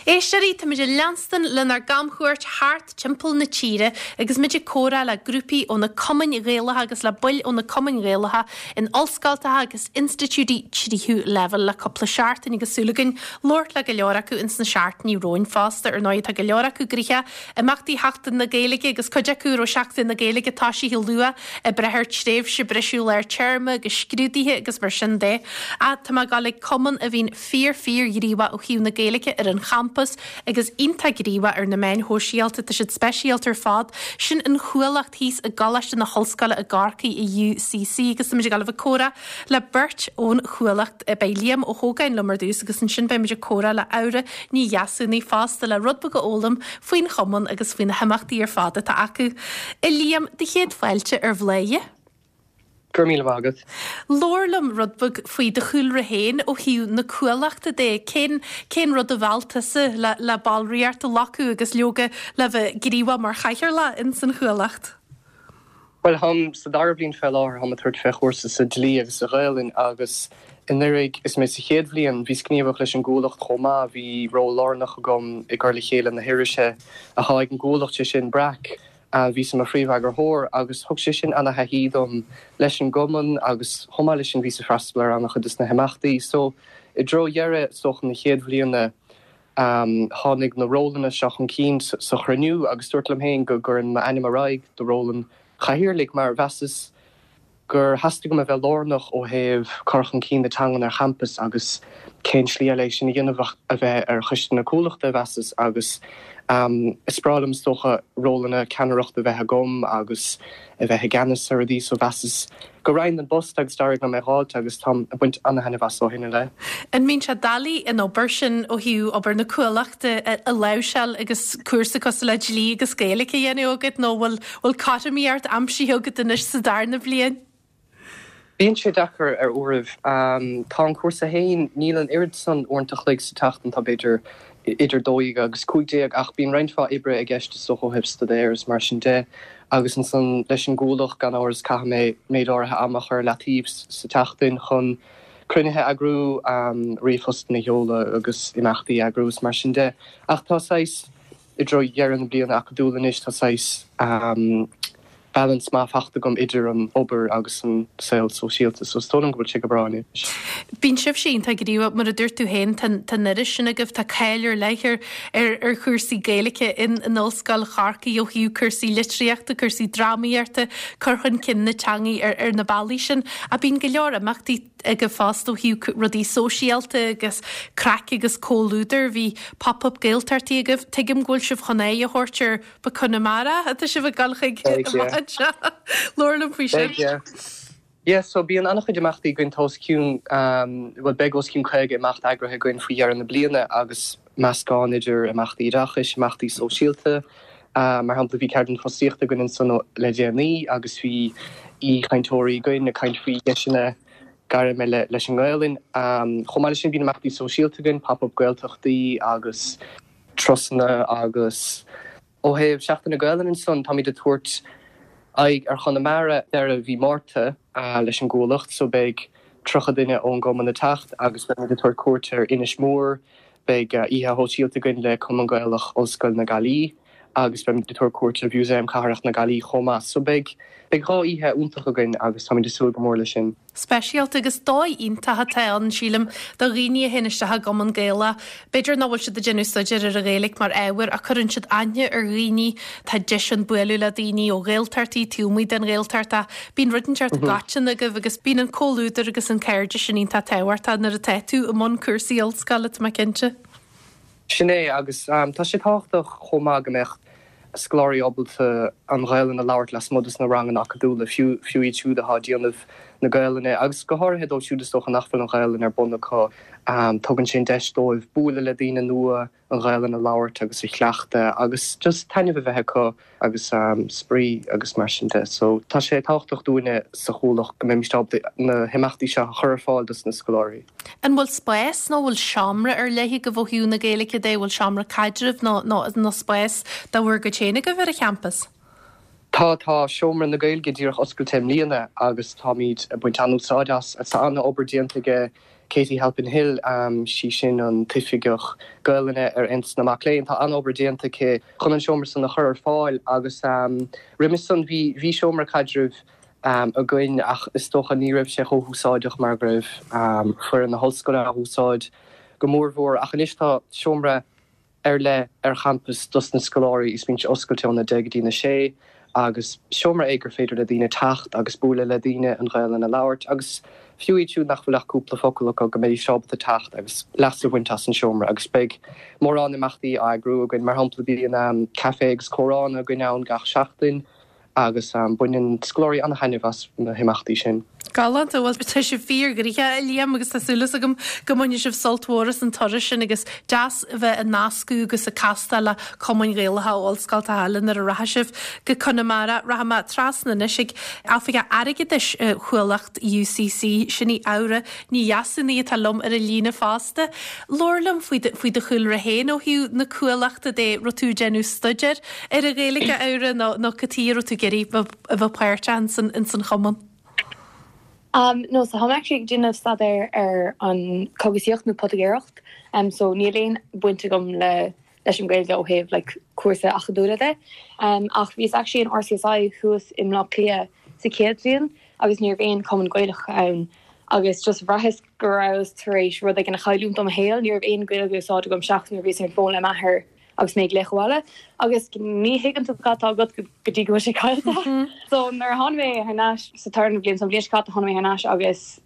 Éisteoirí, táimid ag leanstan lenár gcamchuairt thart timpeall na tíre agus muid ag comhrá le grúpaí ó na cumainn Ghaelacha agus le baill ó na cumainn Ghaelacha in ollscoltacha agus institiúidí tríú leibhéal le cúpla seachtain agus súil againn labhairt le go leor acu ins na seachtainí romhainn fosta. Ar ndóigh, tá go leor acu gnoitheach imeachtaí Sheachtain na Gaeilge agus cuid acu a raibh Seachtain na Gaeilge toisithe luath ag brath ar tréimhse briseadh lár téarma agus scrúduithe agus mar sin de. Ach tá mé ag dul ag cumann a bhíonn fíor fíor ghníomhach ó thaobh na Gaeilge ar an champas agus iontach gníomhach ar na meáin shóisialta. Tá siad speisialta ar fad. Sin an Chuallacht thíos i gColáiste na hOllscoile i gCorcaigh i UCC agus táimid ag dul a bheith ag comhrá le beirt ón Chuallacht. Beidh Liam Ó hÓgáin liom ar dtús agus ansin beidh muid ag comhrá le Aura Ní Dheasúnaigh fosta le rud beag a fhoghlaim faoin chumann agus faoi na himeachtaí ar fad atá acu. A Liam, do chéad fáilte ar Bhladhaire. Go raibh míle maith agat. Labhair liom rud beag faoi do chúlra féin ó thaobh na Cuallachta de. Cén, cén rud a mheall tusa le, le ballraíocht a ghlacadh agus leoga le bheith gníomhach mar chathaoirleach ins an Chuallacht? Bhuel, táim sa dara bliain fé láthair, táim ag tabhairt fé chúrsa sa dlí agus sa Ghaelainn agus anuraidh is mé sa chéad bhliain, bhíos gníomhach leis an gCuallacht chomh maith, bhí ról lárnach agam i gcur le chéile na hirise atá ag an gCuallacht, sé sin Breac. Bhíos i mo phríomheagarthóir agus thug sé sin ana-thaithí dom leis an gcumann agus chomh maith leis sin bhíos ag freastal ar ana-chuid des na himeachtaí. So i dtreo dheireadh is dócha na chéad bhliana tháinig na rólanna seo chun cinn sa chruinniú agus dúrt liom féin go gcuirfinn m'ainm ar aghaidh do ról an chathaoirligh mar mheasas gur theastaigh uaim a bheith lárnach ó thaobh cur chun cinn na teangan ar champas agus cén slí eile é sin a dhéanamh ach a bheith ar choiste na Cuallachta, mheasas, agus is breá liom is dócha rólanna ceannaireachta a bheith agam agus a bheith i gceannas ar rudaí so mheasas go raghainn don bpost agus d'éirigh liom é dh'fháilt agus táim ag baint ana-thaitneamh as ó shin i leith. An mbíonn sé doiligh an obair sin ó thaobh obair na Cuallachta a láimhseáil agus cúrsa cosúil le dlí agus Gaeilge a dhéanamh agat nó bhfuil Bhfuil cothromaíocht aimsithe agat anois sa darna bliain? Bíonn sé deacair ar uairibh. Tá an cúrsa féin, níl an oiread san uaireanta a chloig sa tseachtain, tá b'fhéidir idir 12 agus 15 ach bíonn roinnt mhaith oibre i gceist is dócha ó thaobh staidéir is mar sin de agus ansan leis an gCuallacht gan amhras caithfidh mé méid áirithe ama a chur ar leataobh sa tseachtain chun cruinnithe a eagrú, ríomhphostanna a sheoladh agus imeachtaí a eagrú is mar sin de. Ach tá saghas. I dtreo dheireadh na bliana acadúla anois tá saghas balance maith fachta agam idir an obair agus an saol sóisialta so is dóigh liom go bhfuil sé go breá anois. Bíonn sibhse iontach gníomhach, mar a dúirt tú féin, tá an iris sin agaibh, tá cáil ar leith ar ar chúrsaí Gaeilge in in Ollscoil Chorcaí ó thaobh cúrsaí litríochta, cúrsaí drámaíochta, cur chun cinn na teangaí ar ar na bealaí sin. Ach bíonn go leor imeachtaí agaibh fosta ó thaobh rudaí sóisialta agus craic agus comhluadar. Bhí Pop Up Gaeltachtaí agaibh. Tuigim go bhfuil sibh chun aghaidh a thabhairt ar ba Conamara atá sibh ag dul chuig amach anseo. Labhair liom faoi sin. Beidh, yeah. Yeah, so bíonn an-chuid imeachtaí againn, tá os cionn, bhuel beidh os cionn 50 imeacht eagraithe againn faoi dheireadh na bliana agus meascán idir imeachtaí oideachais, imeachtaí sóisialta. Mar shampla bhí ceardlann fostaíochta againn ansan le déanaí agus bhí aoichainteoirí againn ag caint faoi dheiseanna gairme leis an nGaelainn. Chomh maith leis sin bíonn imeachtaí sóisialta againn, Pop Up Gaeltachtaí agus turasanna agus ó thaobh Seachtain na Gaelainne ansan táimid ag tabhairt aghaidh ar Chonamara deireadh mhí Márta leis an gCuallacht so beidh 30 duine ón gcumann ag teacht agus beimid ag tabhairt cuairt ar Inis Mór, beidh oíche shóisialta againn le Cumann Gaelach Ollscoil na Gaillimhe agus beimid ag tabhairt cuairt ar Mhúsaem Cathrach na Gaillimhe chomh maith. So beidh beidh 2 oíche iontach againn agus táimid ag súil go mór leis sin. Speisialta agus dóigh iontach atá ann, sílim, do dhaoine a théann isteach i gCumann Gaelach. B'fhéidir nach bhfuil siad ag déanamh staidéir ar an Ghaeilge mar ábhar ach cuireann siad aithne ar dhaoine, tá deis ann bualadh le daoine ó Ghaeltachtaí, taobh amuigh den Ghaeltacht ach bíonn rud inteacht i gcoiteann agaibh agus bíonn an comhluadar agus an cairdeas sin iontach tábhachtach nuair atá tú i mbun cúrsaí ollscoile, tá mé cinnte. Sin é, agus tá sé tábhachtach chomh maith go mbeadh scoláirí ábalta an Ghaelainn a labhairt lasmuigh dos na ranganna acadúla, fiú fiú iad siúd atá ag déanamh na Gaelainne, agus go háirithe dóibh siúd is dócha nach bhfuil an Ghaelainn ar bun acu. Tugann sé an deis dóibh bualadh le daoine nua, an Ghaelainn a labhairt agus a chleachtadh agus just taitneamh a bheith acu agus spraoi agus mar sin de. So tá sé tábhachtach dúinne sa Chuallacht go mbeimis ábalta na himeachtaí seo a chur ar fáil dos na scoláirí. An bhfuil spás nó bhfuil seomra ar leith agaibh ó thaobh na Gaeilge de? Bhfuil seomra caidrimh nó nó spás de bhur gcuid féin agaibh ar an champas? Tá, tá Seomra na Gaeilge díreach oscailte i mbliana agus táimid ag baint an-úsáid as. Tá an-obair déanta aige. Katie Halpin-Hill, sí sin an tOifigeach Gaelainne ar Aontas na Mac Léinn, tá an-obair déanta aici chun an seomra san a chur ar fáil agus roimis san bhí, bhí seomra caidrimh againn ach is dócha ní raibh sé chomh húsáideach mar go raibh foireann na hollscoile á úsáid go mórmhór ach anois tá seomra ar leith ar champas dos na scoláirí is bíonn sé oscailte óna deich go dtí na sé agus seomra é gur féidir le daoine teacht agus bualadh le daoine, an Ghaelainn a labhairt agus fiú iad siúd nach bhfuil ach cúpla focal acu go mbeidís ábalta teacht agus leas a bhaint as an seomra agus beidh mórán imeachtaí á eagrú againn. Mar shampla bíonn caife agus comhrá againn ann gach seachtain. agus baineann scoláirí an-taitneamh as na himeachtaí sin. Galánta. Bhuel, tá sibh fíorghnoitheach, a Liam, agus tá súil agam go mbainfidh sibh sult mhór as an turas sin agus deas a bheith ag nascadh agus ag castáil le cumainn Ghaelacha ó ollscoltacha eile nuair a rachaidh sibh go Conamara. Rachaidh mé trasna anois ag Oifigeach Airgeadais Chuallacht UCC, sin í Aura Ní Dheasúnaigh atá liom ar an líne fosta. Labhair liom faoi do, faoi do chúlra féin ó thaobh na Cuallachta de, raibh tú ag déanamh staidéir ar an Ghaeilge, a Aura, nó, nó cad chuige a raibh tú ag iarraidh bheith, a bheith páirteach ins an, ins an chumann? Um, no, so tá mé actually ag déanamh staidéir ar an cogasaíocht nó poitigéireacht, um, so níl aon baint agam le, leis an Ghaeilge ó thaobh like cúrsa acadúla de. Um, ach bhíos actually in RCSI thuas i mBleá Cliath sa chéad bhliain agus ní raibh aon cumann Gaelach ann agus just bhraitheas go rabhas tar éis rud éigin a chailliúint ó mo shaol, ní raibh aon Ghaeilge á úsáid agam seachas nuair a bhíos ar an bhfón le m'athair agus mé ag glaoch abhaile agus ní thuigeann tú cad tá agat go dtí go bhfuil sé caillte. So nuair a tháinig mé thar n-ais sa tarna bhliain, so an bhliain seo caite tháinig mé thar n-ais agus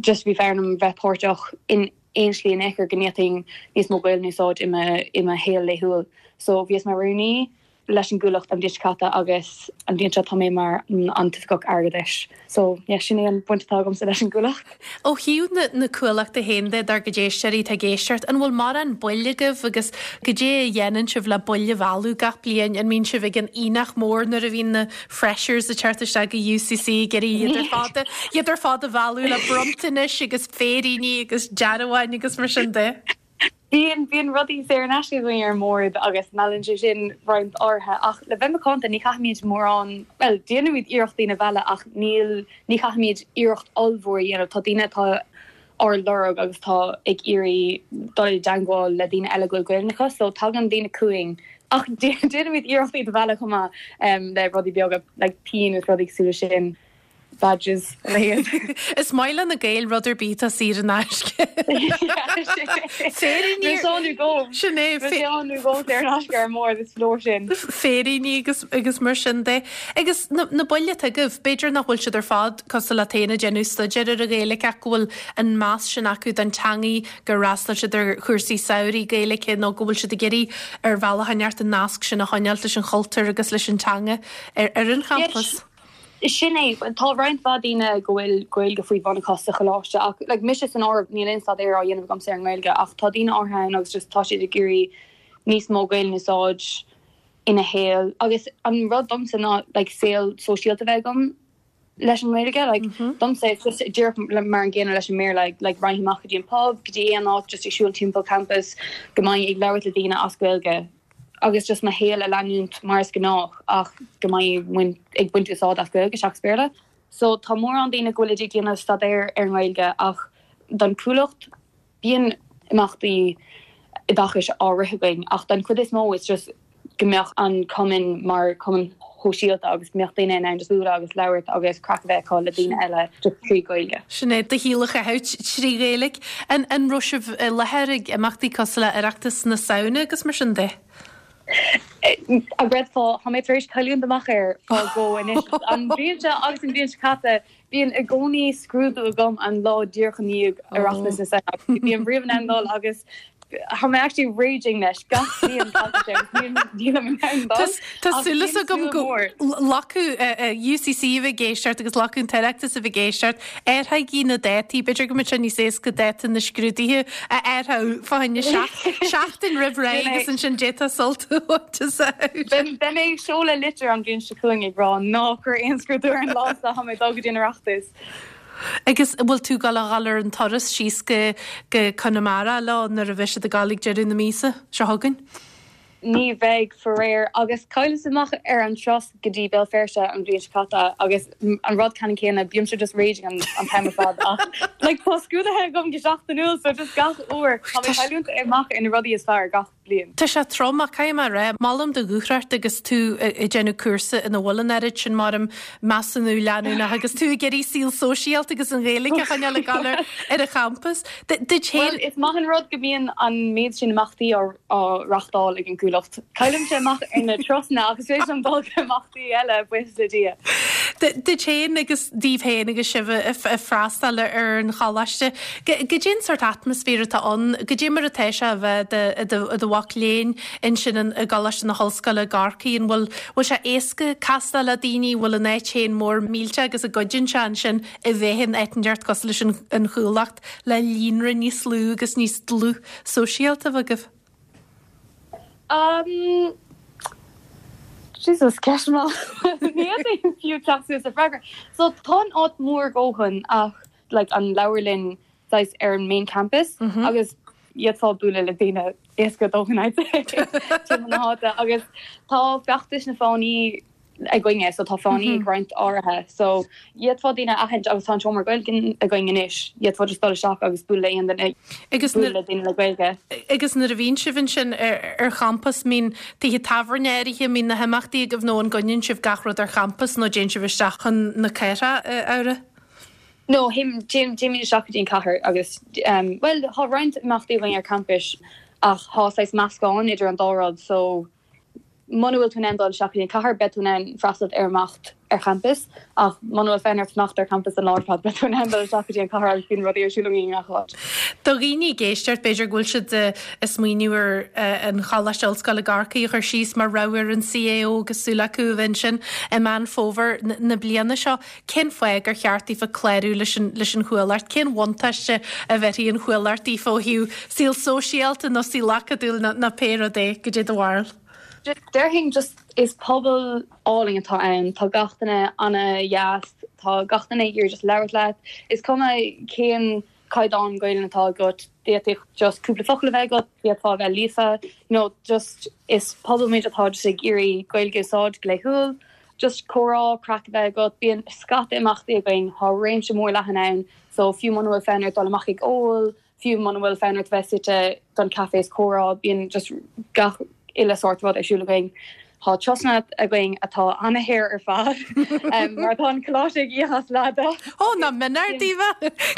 just bhí fonn orm bheith páirteach in aon slí in aon chor go ndéanfainn níos mó Gaeilge a úsáid i mo i mo shaol laethúil. So bhíos mar rúnaí leis an gCuallacht an bhliain seo caite agus an bhliain seo tá mé mar an tOifigeach Airgeadais. So yeah, sin é an bhaint atá agamsa leis an gCuallacht. Ó thaobh na na Cuallachta féin de, dár gcuid éisteoirí atá ag éisteacht, an bhfuil mórán baill agaibh agus goidé a dhéanann sibh le baill a mhealladh gach bliain? An mbíonn sibh ag an aonach mór nuair a bhíonn na freshers ag teacht isteach go UCC ag iarraidh iad ar fad a iad ar fad a mhealladh le bronntanais agus féiríní agus dearbháin agus mar sin de? Bíonn, bíonn rudaí saor in aisce againn ar an mbord agus meallann sé sin roinnt áirithe ach le bheith macánta ní chaithfimid mórán, bhuel déanaimid iarracht daoine a mhealladh ach níl, ní chaithfimid iarracht ollmhór a dhéanamh. Tá daoine atá ár lorg agus atá ag iarraidh dul i dteangmháil le daoine eile go bhfuil Gaeilge acu so tagann daoine chugainn ach déanaimid iarracht iad a mhealladh chomh maith le rudaí beaga like pinn agus rudaí cosúil leis sin. badges a leithéid. Is maith le na Gaeil rud ar bith atá saor in aisce. Féiríní. Bhí sé ann nó go. Sin é. Bhí sé ann nó go saor in aisce ar an mbord is leor sin. Féiríní agus agus mar sin de. Agus na na baill atá agaibh, b'fhéidir nach bhfuil siad ar fad cosúil leat féin ag déanamh staidéir ar an Ghaeilge ach go bhfuil an meas sin acu don teangaidh, gur fhreastail siad ar chúrsaí samhraidh Gaeilge nó go bhfuil siad ag iarraidh ar bhealach inteacht an nasc sin a choinneáilt leis an chultúr agus leis an teanga ar ar an champas. Sin é. Tá roinnt mhaith daoine go bhfuil Gaeilge faoi bhun acu sa choláiste ach like mise san áireamh níl aon staidéar á dhéanamh agamsa ar an nGaeilge ach tá daoine áirithe ann agus just tá siad ag iarraidh níos mó Gaeilge a úsáid ina shaol agus an rud domsa ná like saol sóisialta a bheith agam leis an nGaeilge like domsa it's just díreach mar an gcéanna leis an mBéarla like raghainn amach go dtí an pub go dtí aon áit just ag siúl timpeall campus go mbeinn ag labhairt le daoine as Gaeilge agus just mo shaol a leanúint mar is gnách ach go mbeinn ag baint úsáid as Gaeilge seachas Béarla. So tá mórán daoine go bhfuilid ag déanamh staidéar ar an nGaeilge ach don Chuallacht bíonn imeachtaí oideachais á rith againn ach don chuid is mó it's just go mbeadh an cumann mar chumann shóisialta agus go mbeadh daoine in ann just bualadh agus labhairt agus craic a bheith acu le daoine eile just trí Ghaeilge. Sin é, do shaol a chaitheamh trí Ghaeilge. An an raibh sibh i láthair ag imeachtaí cosúil le Oireachtas na Samhna agus mar sin de? An gcreidfeá, tá mé tar éis cailliúint amach air fá dhó anois. An bhliain seo agus an bhliain seo caite, bíonn i gcónaí scrúdú agam an lá díreach i ndiaidh Oireachtas na Samhna. Ní bhím riamh in ann dul agus Tá mé actually raging leis gach bliain tagann sé agus níl nílim in ann dul. Tá súil agam go lucht UCC a bheith ag éisteacht agus lucht an tOireachtas a bheith ag éisteacht athraígí na dátaí, b'fhéidir go mbeadh sé níos éasca dáta na scrúduithe a athrú fá choinne seachtain roimh ré agus ansin d'fhéadfá sult a bhaint as. Beidh mé ag seoladh litir an bhliain seo chugainn ag rá ná cuir aon scrúdú ar an lá seo, tá mé ag dul go dtí an Oireachtas. Agus an bhfuil tú ag gabháil a dhul ar an turas síos go go Conamara leo nuair a bheidh siad ag gabháil ag deireadh na míosa seo chugainn? Ní bheidh, faraor, agus chailleas amach ar an turas go dtí Béal Feirste an bhliain seo caite agus an rud ceannann céanna, bímse just raging an t-am ar fad ach like tá scrúduithe agam go seachtainiúil so just gach uair tá mé ag cailliúint amach ar na rudaí is fearr gach bliain. Tá sé trom ach caithfidh mé a rá, molaim do dhúthracht agus tú ag déanamh cúrsa ina bhfuil an oiread sin mar measúnú leanúnach agus tú ag iarraidh saol sóisialta agus an Ghaeilge a choinneáil ag dul ar an champas. Duit féin. Bhuel, is maith an rud go mbíonn an méid sin imeachtaí á reáchtáil ag an gCuallacht. Caillimse amach ar na turasanna ach is féidir liom dul go imeachtaí eile, buíochas le Dia. Duit féin agus daoibh féin agus sibh ag freastal ar an choláiste, goidé an sórt atmaisféar atá ann, goidé mar atá sé a bheith i do mhac léinn ansin i gColáiste na hOllscoile i gCorcaigh, an bhfuil bhfuil sé éasca castáil le daoine, bhfuil an áit féin mór millteach agus an gcuidíonn sé ansin a bheith in áit inteacht cosúil leis an Chuallacht le líonra níos lú agus níos dlúth sóisialta a bheith agaibh? Um, Jesus, ceist mhaith. Ní fhéadfainn fiú teacht suas le freagra. So tá an áit mór a dhóthain ach like an leabharlann saghas ar an main campus agus d'fhéadfá bualadh le daoine éasca a dóthain I'd say timpeall na háite agus tá feachtais na fáinní againne so tá fáinní ag roinnt áirithe so d'fhéadfá daoine a aithint agus tá an seomra Gaeilge againn anois d'fhéadfá just dul isteach agus bualadh le aon duine Agus bualadh le daoine le Gaeilge. Agus nuair a bhíonn sibh ansin ar champas, mbíonn tithe tábhairne áirithe, mbíonn na himeachtaí agaibh nó an gcoinníonn sibh gach rud ar champas nó dtéann sibh isteach chun na cathrach, a Fhabhra? No, téimid isteach go dtí an cathair agus, bhuel, tá roinnt imeachtaí againn ar campus ach tá saghas meascán idir an dá rud so muna bhfuil tú in ann dul isteach go dtí an cathair beidh tú in ann freastal ar imeacht ar champas ach muna bhfuil fonn ort fanacht ar champas an lá ar fad beidh tú in ann dul isteach go dtí an cathair agus bíonn rudaí ar siúl againn i ngach áit. Do dhaoine ag éisteacht, b'fhéidir go bhfuil siad ag smaoineamh ar an Choláiste Ollscoile i gCorcaigh a chur síos mar rogha ar an CAO agus súil acu a bheith ansin i Meán Fómhair na bliana seo. Cén fáth gur cheart daofa clárú leis an leis an Chuallacht? Cén bhuntáiste a bhéarfaidh an Chuallacht daofa ó thaobh saol sóisialta nó saol acadúil nó nó pé rud é? Goidé do bharúil? Déarfainn just is pobal álainn atá ann, tá gach duine ana-dheas, tá gach duine ag iarraidh just labhairt leat, is cuma cén caighdeán Gaelainn atá agat, d'fhéadfadh just cúpla focal a bheith agat, d'fhéadfá a bheith líofa, you know, just is pobal muid atá just ag iarraidh Gaeilge a úsáid go laethúil, just comhrá, craic a bheith agat, bíonn scata imeachtaí againn, tá réimse mór leathan ann, so fiú muna bhfuil fonn ort dul amach ag ól, fiú muna bhfuil fonn ort bheith suite don caife is comhrá, bíonn just gach uile sórt rud ar siúl againn. Tá turasanna againn atá ana-shaor ar fad, mar tá an coláiste ag íoc as leath de. Ó, nach mionár daoibh!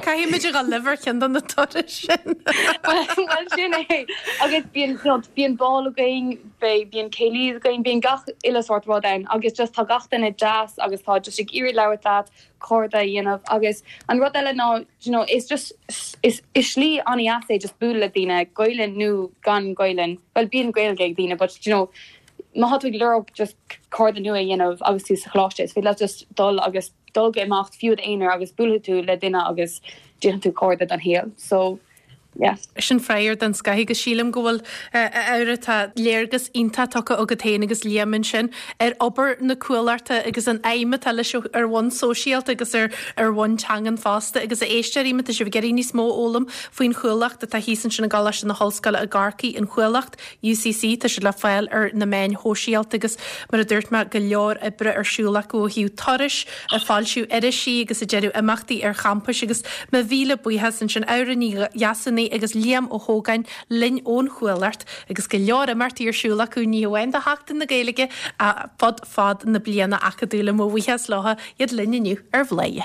Caithfidh muid a dhul libh ar cheann de na turais sin. Bhuel, sin é. Agus bíonn, you know, bíonn bál againn, beidh, bíonn céilí againn, bíonn gach uile sórt rud ann agus just tá gach duine deas agus tá just ag iarraidh labhairt leat, cairde a dhéanamh agus an rud eile ná you know is just is is slí an-dheas é just bualadh le daoine, Gaelainn nó gan Gaelainn, bhuel bíonn Gaeilge ag daoine but you know má tá tú ag lorg just cairde nua a dhéanamh agus tú sa choláiste is féidir leat just dul agus dul go imeacht fiú i d'aonar agus buailfidh tú le duine agus déanfaidh tú cairde don shaol so yeah. Sin freagra den scoth agus sílim go bhfuil, a Fhabhra, tá léargas iontach tugtha agat féin agus Liam ansin ar obair na Cuallachta agus an aidhm atá leis ar bhonn sóisialta agus ar ar bhonn teangan fosta agus a éisteoirí má tá sibh ag iarraidh níos mó a fhoghlaim faoin Chuallacht atá thíos ansin i gColáiste na hOllscoile i gCorcaigh, an Chuallacht, UCC, tá siad le fáil ar na meáin shóisialta agus mar a dúirt mé go leor oibre ar siúl acu ó thaobh turais, ag foilsiú irisí agus ag déanamh imeachtaí ar champais agus mo mhíle buíochas ansin Fhabhra Ní Dheasúnaigh agus Liam Ó hÓgáin linn ón Chuallacht agus go leor imeachtaí ar siúl acu ní hamháin do Sheachtain na Gaeilge ach fud fad na bliana acadúla. Mo bhuíochas leo iad linn inniu ar Bhladhaire.